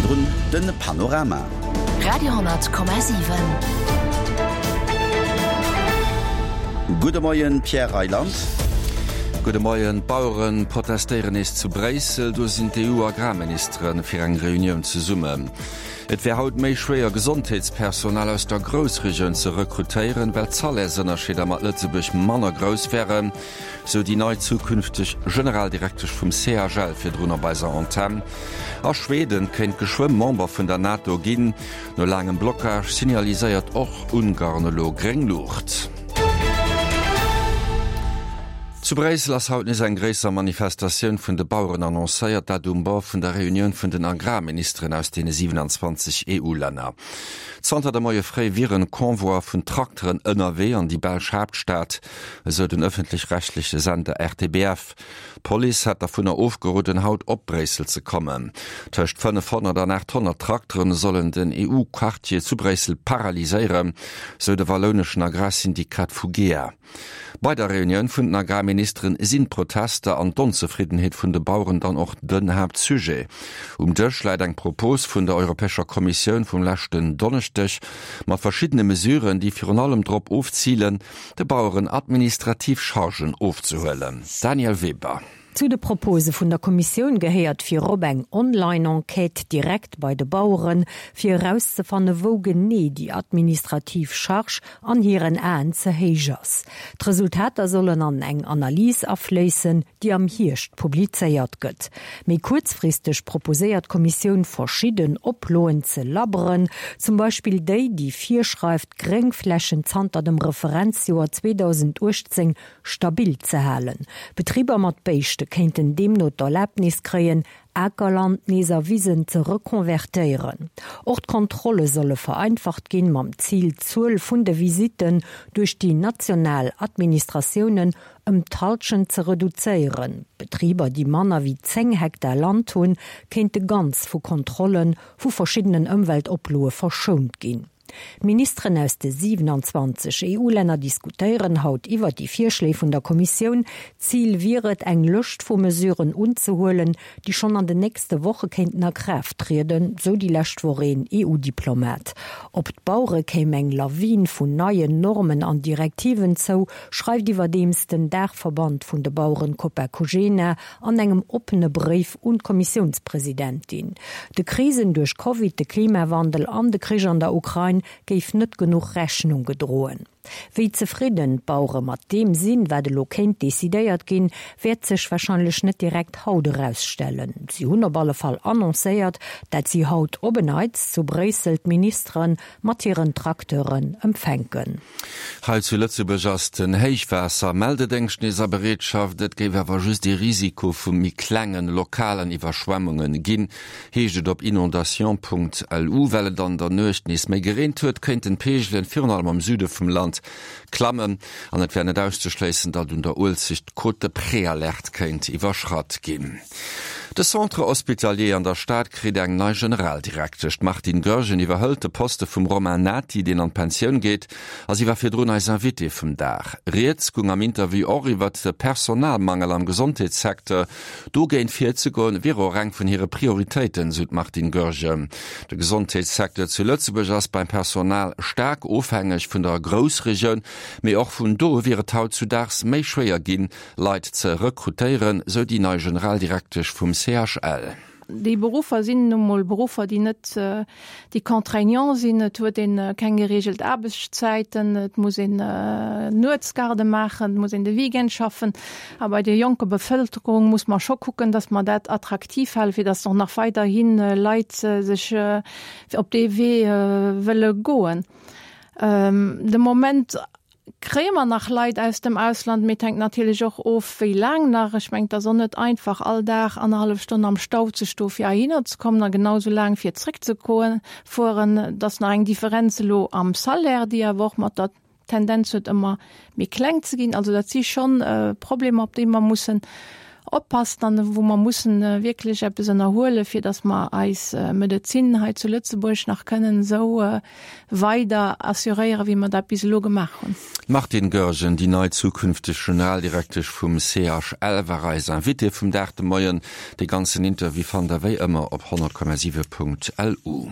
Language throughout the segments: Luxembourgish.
Virdrun de Panorama. Radio,7. Gudde Moien, Pierre Reyland. Gudde Moien. D'Bauere protestéieren nees zu Bréissel. Do sinn d'EU-Agrarministere fir eng Reunioun zesummen. Et wär haut méi schwéier Gesondheetspersonal aus der Groussregioun ze rekrutéieren, well d'Salaires-Ënnerscheeder mat Lëtzebuerg manner grouss wären, sou déi nei zukünfteg Generaldirektesch vum CHL virdrun op eiser Antenn. A Schweden kéint geschwë Member vun der NATO ginn. No laangem Blockage signaliséiert och Ungarn elo gréng Luucht. Zu Bréissel ass haut nees eng gréisser Manifestatioun vun de Baueren annoncéiert, dat um Bord vun der Reunioun vun den Agrarministeren aus deene 27 EU-Länner. Zanter de Moie fréi wier en Convoi vun Trakteren ënnerwee an déi belsch Haaptstad, esou den ëffentlech-rechtleche Sender RTBF. D'Police hätt dervunner ofgeroden, haut op Bréissel ze kommen. Tëscht 500 an 800 Trakteren sollen den EU-Quartier zu Bréissel paralyséieren, sou de wallouneschen Agrarsyndikat Fugea. Bei der Reunioun vun den Agrarministeren sinn d'Protester an d'Onzefriddenheet vun de Baueren dann och den Haaptsujet. Um Dësch läit eng Propos vun der Europäescher Kommissioun vum leschten Donneschdeg mat verschiddene Mesuren, déi virun allem drop ofzilen, de Baueren administrativ Chargen ofzehuelen. Danièle Weber. Zu de Propose vun der Kommissioun gehéiert virop eng Online-Enquête direkt bei de Baueren, fir erauszefanne wou genee déi administrativ Charge an hiren Aen ze héich ass. D'Resultater sollen an eng Analys afléissen, déi am Hierscht publizéiert gëtt. Méi kuerzfristeg proposéiert d'Kommissioun verschidden Oploen ze labberen, zum Beispill déi, déi virschreift, d'Gréngflächen zanter dem Referenzjoer 2018 stabil ze halen. Betriber mat Béischte kéinten deemno d'Erlaabnis kréien, Akerland nees a Wisen ze rekonvertéieren. Och d'Kontrolle solle vereinfacht ginn, mam Zil, d'Zuel vun de Visitten duerch déi national Administratiounen ëm d'Hallschent ze reduzéieren. Betriber, déi manner wéi 10 Hektar Land hunn, kéinte ganz vu Kontrolle vu verschiddenen Ëmweltoploe verschount ginn. D'Ministeren aus de 27 EU-Länner diskutéieren haut iwwer déi Virschléi vun der Kommissioun. Zil wier et, eng Lëscht vu Mesuren unzehuelen, déi schonn an den nächste Woche kéinten a Kraaft trieden, sou déi lescht Woch een EU-Diplomat. Op d'Bauere kéim eng Lawin vun neien Normen an Direktiven zou, schreift iwwerdeems den Daachverband vun de Baueren Copa-Cogena an engem oppene Bréif un d'Kommissiounspresidentin. De Krisen duerch Covid, de Klimawandel an de Krich an der Ukrain géif net genuch Rechnung gedroen. Wéi zefridden d'Bauere mat deem sinn, wat elo kéint decidéiert ginn, wäert sech warscheinlech net direkt haut erausstellen. Si hunn op alle Fall annoncéiert, dat si haut op en Neits zu Bréissel d'Ministere mat hiren Tracteuren empfänken. Hei zu Lëtzebuerg ass den Héichwaasser-Meldedéngscht nees a Bereetschaft. Et géif awer just ee Risiko vu méi klengen, lokalen Iwwerschwemmunge ginn, heescht et op inondation.lu. Well et an der Nuecht nees méi gereent huet, kéinten d'Peegelen virun allem am Süde vum Land klammen an et wär net auszeschléissen, datt un der Uelzecht d'Cote de Préalerte kéint iwwerschratt ginn. De Centre hospitalier an der Stad kritt eng nei Generaldirektesch. D'Martine Goergen iwwerhëlt de Poste vum Romain Nati, deen an d'Pensioun geet, a si war virdrun eis Invitée vum Dag. Rieds gung am Interview och iwwert de Personalmangel am Gesondheetssecteur. Dogéint virzegoen, wier och eng vun hire Prioritéiten, sou d'Martine Goergen. De Gesondheetssecteur zu Lëtzebuerg ass beim Personal staark ofhängeg vun der Groussregioun, mee och vun do wier et hautzudaags méi schwéier ginn, Leit ze rekrutéieren, sou déi nei Generaldirektesch vum CHL. Déi Beruffer sinn nu mol Beruffer, déi net, déi contraignant sinn. Et huet ee keng gereegelt Aarbechtszäiten, et muss een Nuetsgarde maachen, et muss een de Weekend schaffen. A bei der jonker Bevëlkerung muss mer scho kucken, datt mer dat attraktiv halen, fir datt och nach weiderhi Leit sech op dee Wee wëlle goen. De Moment Kréie mer nach Leit aus dem Ausland? Mee et hänkt natierlech och of, wéi laang nach. Ech mengen, et ass och net einfach, all Dag annerhallef Stonn am Stau ze stoe fir heihinner ze kommen a genau esou laang fir zréckzefueren. Et ass nach eng Differenz elo am Salaire, déi awer och mat der Tendenz huet, ëmmer méi kleng ze ginn. Also dat si schonn Problemer, op déi mer mussen. oppassen an wou mer mussen wierklech eppes ënnerhuelen, fir datt mer eis Medezin hei zu Lëtzebuerg nach kënnen esou weider assuréieren, wéi mer dat bis elo gemaach hunn. D'Martine Goergen, déi nei zukünfteg Generaldirektesch vum CHL, war eis Invitée vum Dag de Moien. De ganzen Interview fannt der wéi ëmmer op 100,7.lu.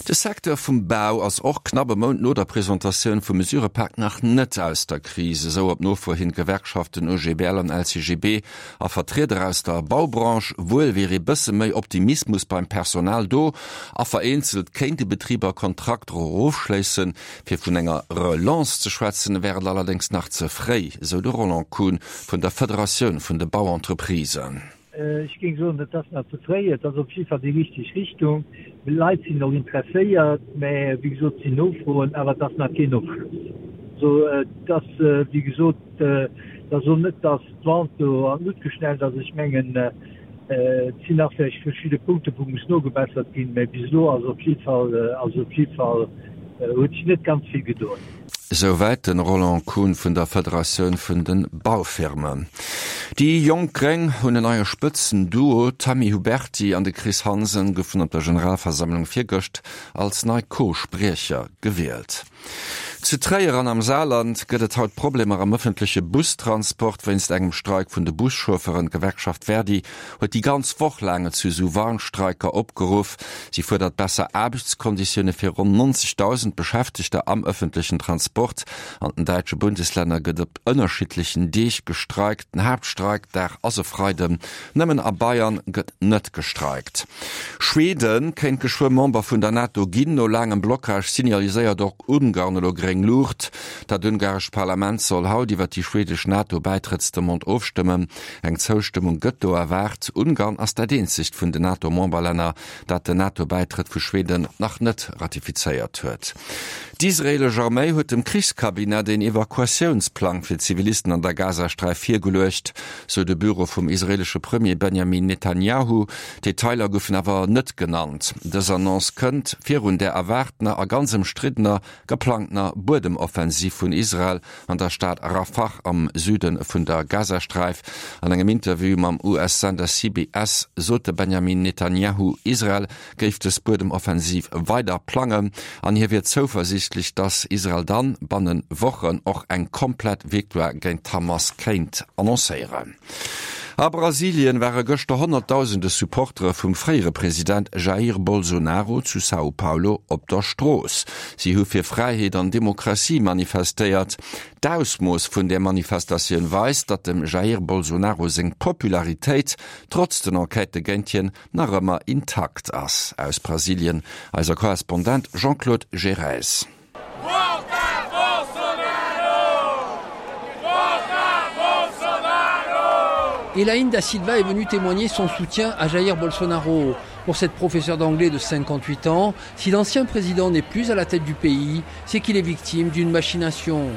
De Secteur vum Bau ass och knapp e Mount no der Presentatioun vum Mesurëpak nach net aus der Kris, esou op Nofro hin d'Gewerkschaften OGBL an LCGB a Vertrieder aus der Baubranche. Wuel wier ee bësse méi Optimismus beim Personal do a vereenzelt kéinte Betriber Kontrakter erofschléissen. Fir vun enger Relance ze schwätzen, wär et allerdéngs nach ze fréi, esou de Roland Kuhn vun der Federatioun vun de Bauentreprisen. Ech géing soen, et ass nach ze fréi. Et ass op jidde Fall déi richteg Richtung. D'Leit sinn och interesséiert, mä wéi gesot, et sinn Nofroen, awer et ass nach keen Ofschloss. Also et ass, wéi gesot, et ass och net, datt d'Vente do an d'Luucht geschnellt ass. Ech mengen, et sinn nach vläicht verschidde Punkte wou muss nogebessert ginn, mä bis elo ass op jidde Fall, ass op jidde Fall, huet sech net ganz vill gedoen. Souwäit de Roland Kuhn vun der Federatioun vun de Baufirmen. Déi jonk Gréng hunn en neie Spëtzenduo, D'Tammy Huberty an de Chris Hansen goufen op der Generalversammlung virgëscht als nei Co-Spriecher gewielt. Zu Tréier an am Saarland gëtt et haut Problemer am ëffentleche Bustransport wéinst engem Streik vun de Buschaufferen. D'Gewerkschaft Verdi huet déi ganz Woch laang zu esou Warnstreiker opgeruff. Si fuerdert besser Aarbechtskonditioune fir ronn 90.000 Beschäftegter am ëffentlechen Transport. An den däitsche Bundeslänner gëtt op ënnerschiddlechen Deeg gestreikt. Den Haaptstreikdag ass e Freiden. Nëmmen a Bayern gëtt net gestreikt. Schweden kéint geschwë Member vun der NATO ginn. No laangem Blockage signaliséiert och Ungarn elo gréng Luucht. Dat ungarescht Parlament soll haut iwwer déi schwedesch NATO-Bäitrëttsdemande ofstëmmen. Eng Zoustëmmung gëtt do erwaart. Ungarn ass dat eenzegt vun den NATO-Memberlänner, dat den NATO-Bäitrëtt vu Schweden nach net ratifizéiert huet. D'israeelesch Arméi huet dem Krichscabinet een Evakuatiounsplang fir Zivilisten an der Gazasträif virgeluecht, sou de Büro vum israeelesche Premier Benjamin Netanjahu. Detailer goufen awer net genannt. Dës Annonce kënnt virun där erwaartener a ganz ëmstriddener geplangtener Buedemoffensiv vun Israel an der Stad Rafah am Süde vun der Gazasträif. An engem Interview mam US-Sender CBS sot de Benjamin Netanjahu, Israel géif dës Buedemoffensiv weider plangen an hie wier zouversiichtlech, datt Israel dann banne Wochen och eng komplett Victoire géint d'Hamas kéint annoncéieren. A Brasilien ware gëschter honnertdausende Supportere vum fréiere President Jair Bolsonaro zu São Paulo op der Strooss. Si hu fir Fräiheet an Demokratie manifestéiert. D'Ausmooss vun där Manifestatioun weist, datt dem Jair Bolsonaro seng Popularitéit, trotz den Enquêtë géint hien, nach ëmmer intakt ass. Aus Brasilien eiser Korrespondent Jean-Claude Gerez. Elaine da Silva est venue témoigner son soutien à Jair Bolsonaro. Pour cette professeure d'anglais de 58 ans, si l'ancien président n'est plus à la tête du pays, c'est qu'il est victime d'une machination.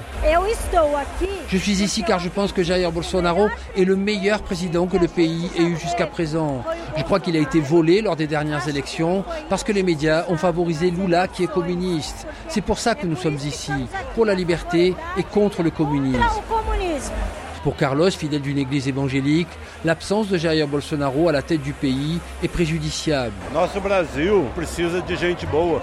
Je suis ici car je pense que Jair Bolsonaro est le meilleur président que le pays ait eu jusqu'à présent. Je crois qu'il a été volé lors des dernières élections parce que les médias ont favorisé Lula qui est communiste. C'est pour ça que nous sommes ici, pour la liberté et contre le communisme. Pour Carlos, fidèle d'une église évangélique, l'absence de Jair Bolsonaro à la tête du pays est préjudiciable.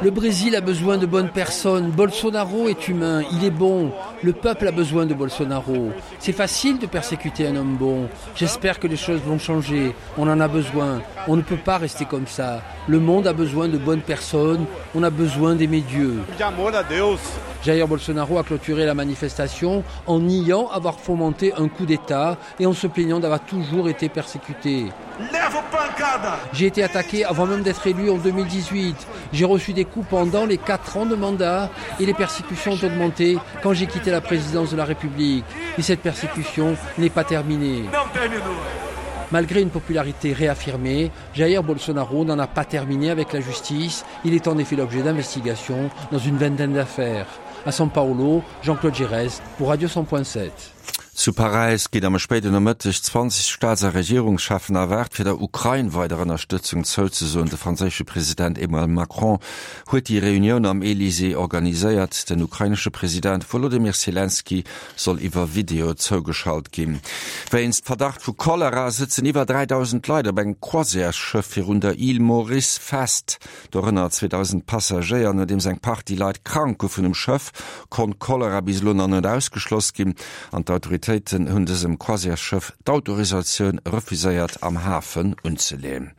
Le Brésil a besoin de bonnes personnes. Bolsonaro est humain, il est bon. Le peuple a besoin de Bolsonaro. C'est facile de persécuter un homme bon. J'espère que les choses vont changer. On en a besoin. On ne peut pas rester comme ça. Le monde a besoin de bonnes personnes. On a besoin d'aimer Dieu. Jair Bolsonaro a clôturé la manifestation en niant avoir fomenté un coup d'État et en se plaignant d'avoir toujours été persécuté. J'ai été attaqué avant même d'être élu en 2018. J'ai reçu des coups pendant les quatre ans de mandat et les persécutions ont augmenté quand j'ai quitté la présidence de la République. Et cette persécution n'est pas terminée. Malgré une popularité réaffirmée, Jair Bolsonaro n'en a pas terminé avec la justice. Il est en effet l'objet d'investigations dans une vingtaine d'affaires. À São Paulo, Jean-Claude Gérès pour Radio 100.7. Zu Paräis ginn am spéiden Nomëtteg 20 Staats a Regierungscheffen erwaart, fir der Ukrain weider Ënnerstëtzung zouzesoen. De franséische President Emmanuel Macron huet déi Reunioun am Elysée organiséiert. Den ukrainesche President Wolodymyr Selenskyj soll iwwer Video zougeschalt ginn. Wéinst Verdacht vu Cholera sëtzen iwwer 3.000 Leit op engem Croisièresschëff virun der Île Maurice fest. Dorënner 2.000 Passagéier. Nodeems eng Partie Leit krank goufen um Schëff, konnt Cholera bis elo nach net ausgeschloss ginn an d'Autoritéiten hunn dësem Croisièresschëff d'Autorisatioun refuséiert am Hafen unzeleeën.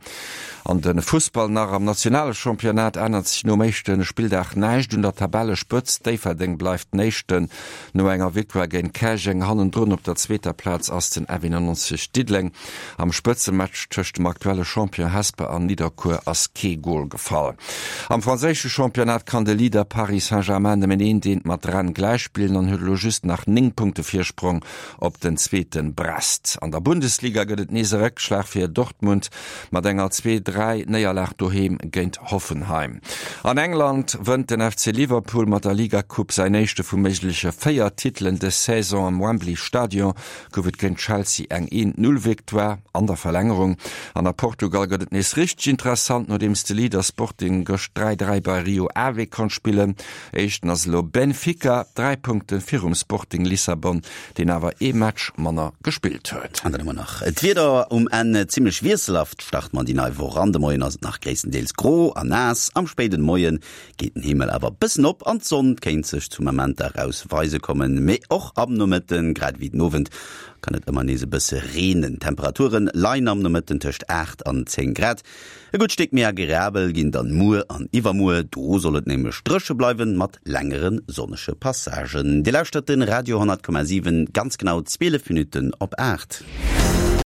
An de Fussball nach, Am nationale Championnat ännert sech nom éischte Spilldag näischt un der Tabellespëtzt. Déifferdeng bleift den Éischten no enger Victoire géint Käerjeng. Hannendrun op der zweeter Plaz ass den F91 Diddeleng. Am Spëtzematch tëscht dem aktuelle Champion Hesper an Nidderkuer ass kee Gol gefall. Am franséische Championnat kann de Leader Paris Saint-Germain nëmmen eent eent mat Rennes gläichspillen an huet elo just nach 9 Punkte Virsprong op den zweete Brest. An der Bundesliga gëtt et nees e Réckschlag fir Dortmund mat enger 2, 3 Néierlag doheem géint Hoffenheim. An England wënnt den FC Liverpool mat der Liga-Coupe säin éischte vu méigleche 4 Titelen dës Saison am Wembley Stadion. Gouf et géint Chelsea eng 1, 0 Victoire an der Verlängerung. An a Portugal gëtt et nees richteg interessant, nodeems de Leader Sporting gëscht 3, 3 bei Rio Ave konnt spillen. Éischten ass elo Benfica, 3 Punkte virum Sporting Lissabon, deen awer ee Match manner gespillt huet. An dann hu mer nach d'Wieder um Enn, Zimmlech wiesselhaft start mer déi nei Woch an. De Moien ass et nach gréisstendeels gro a naass, am spéiden Moie geet den Himmel awer bëssen op an d'Sonn kéint sech zu Momenter eraus weise kommen. Mee och am Nomëtten, grad ewéi den Owend, kann et ëmmer nees e bësse reenen. D'Temperature leien am Nomëtten tëscht 8 an 10 Grad. E gutt Stéck méi agreabel ginn dann muer an iwwermuer, do soll et nämlech dréche bleiwen, mat längere sonnege Passagen. Dir lauschtert de Radio 10,7, ganz genau 12 Minutten op 8.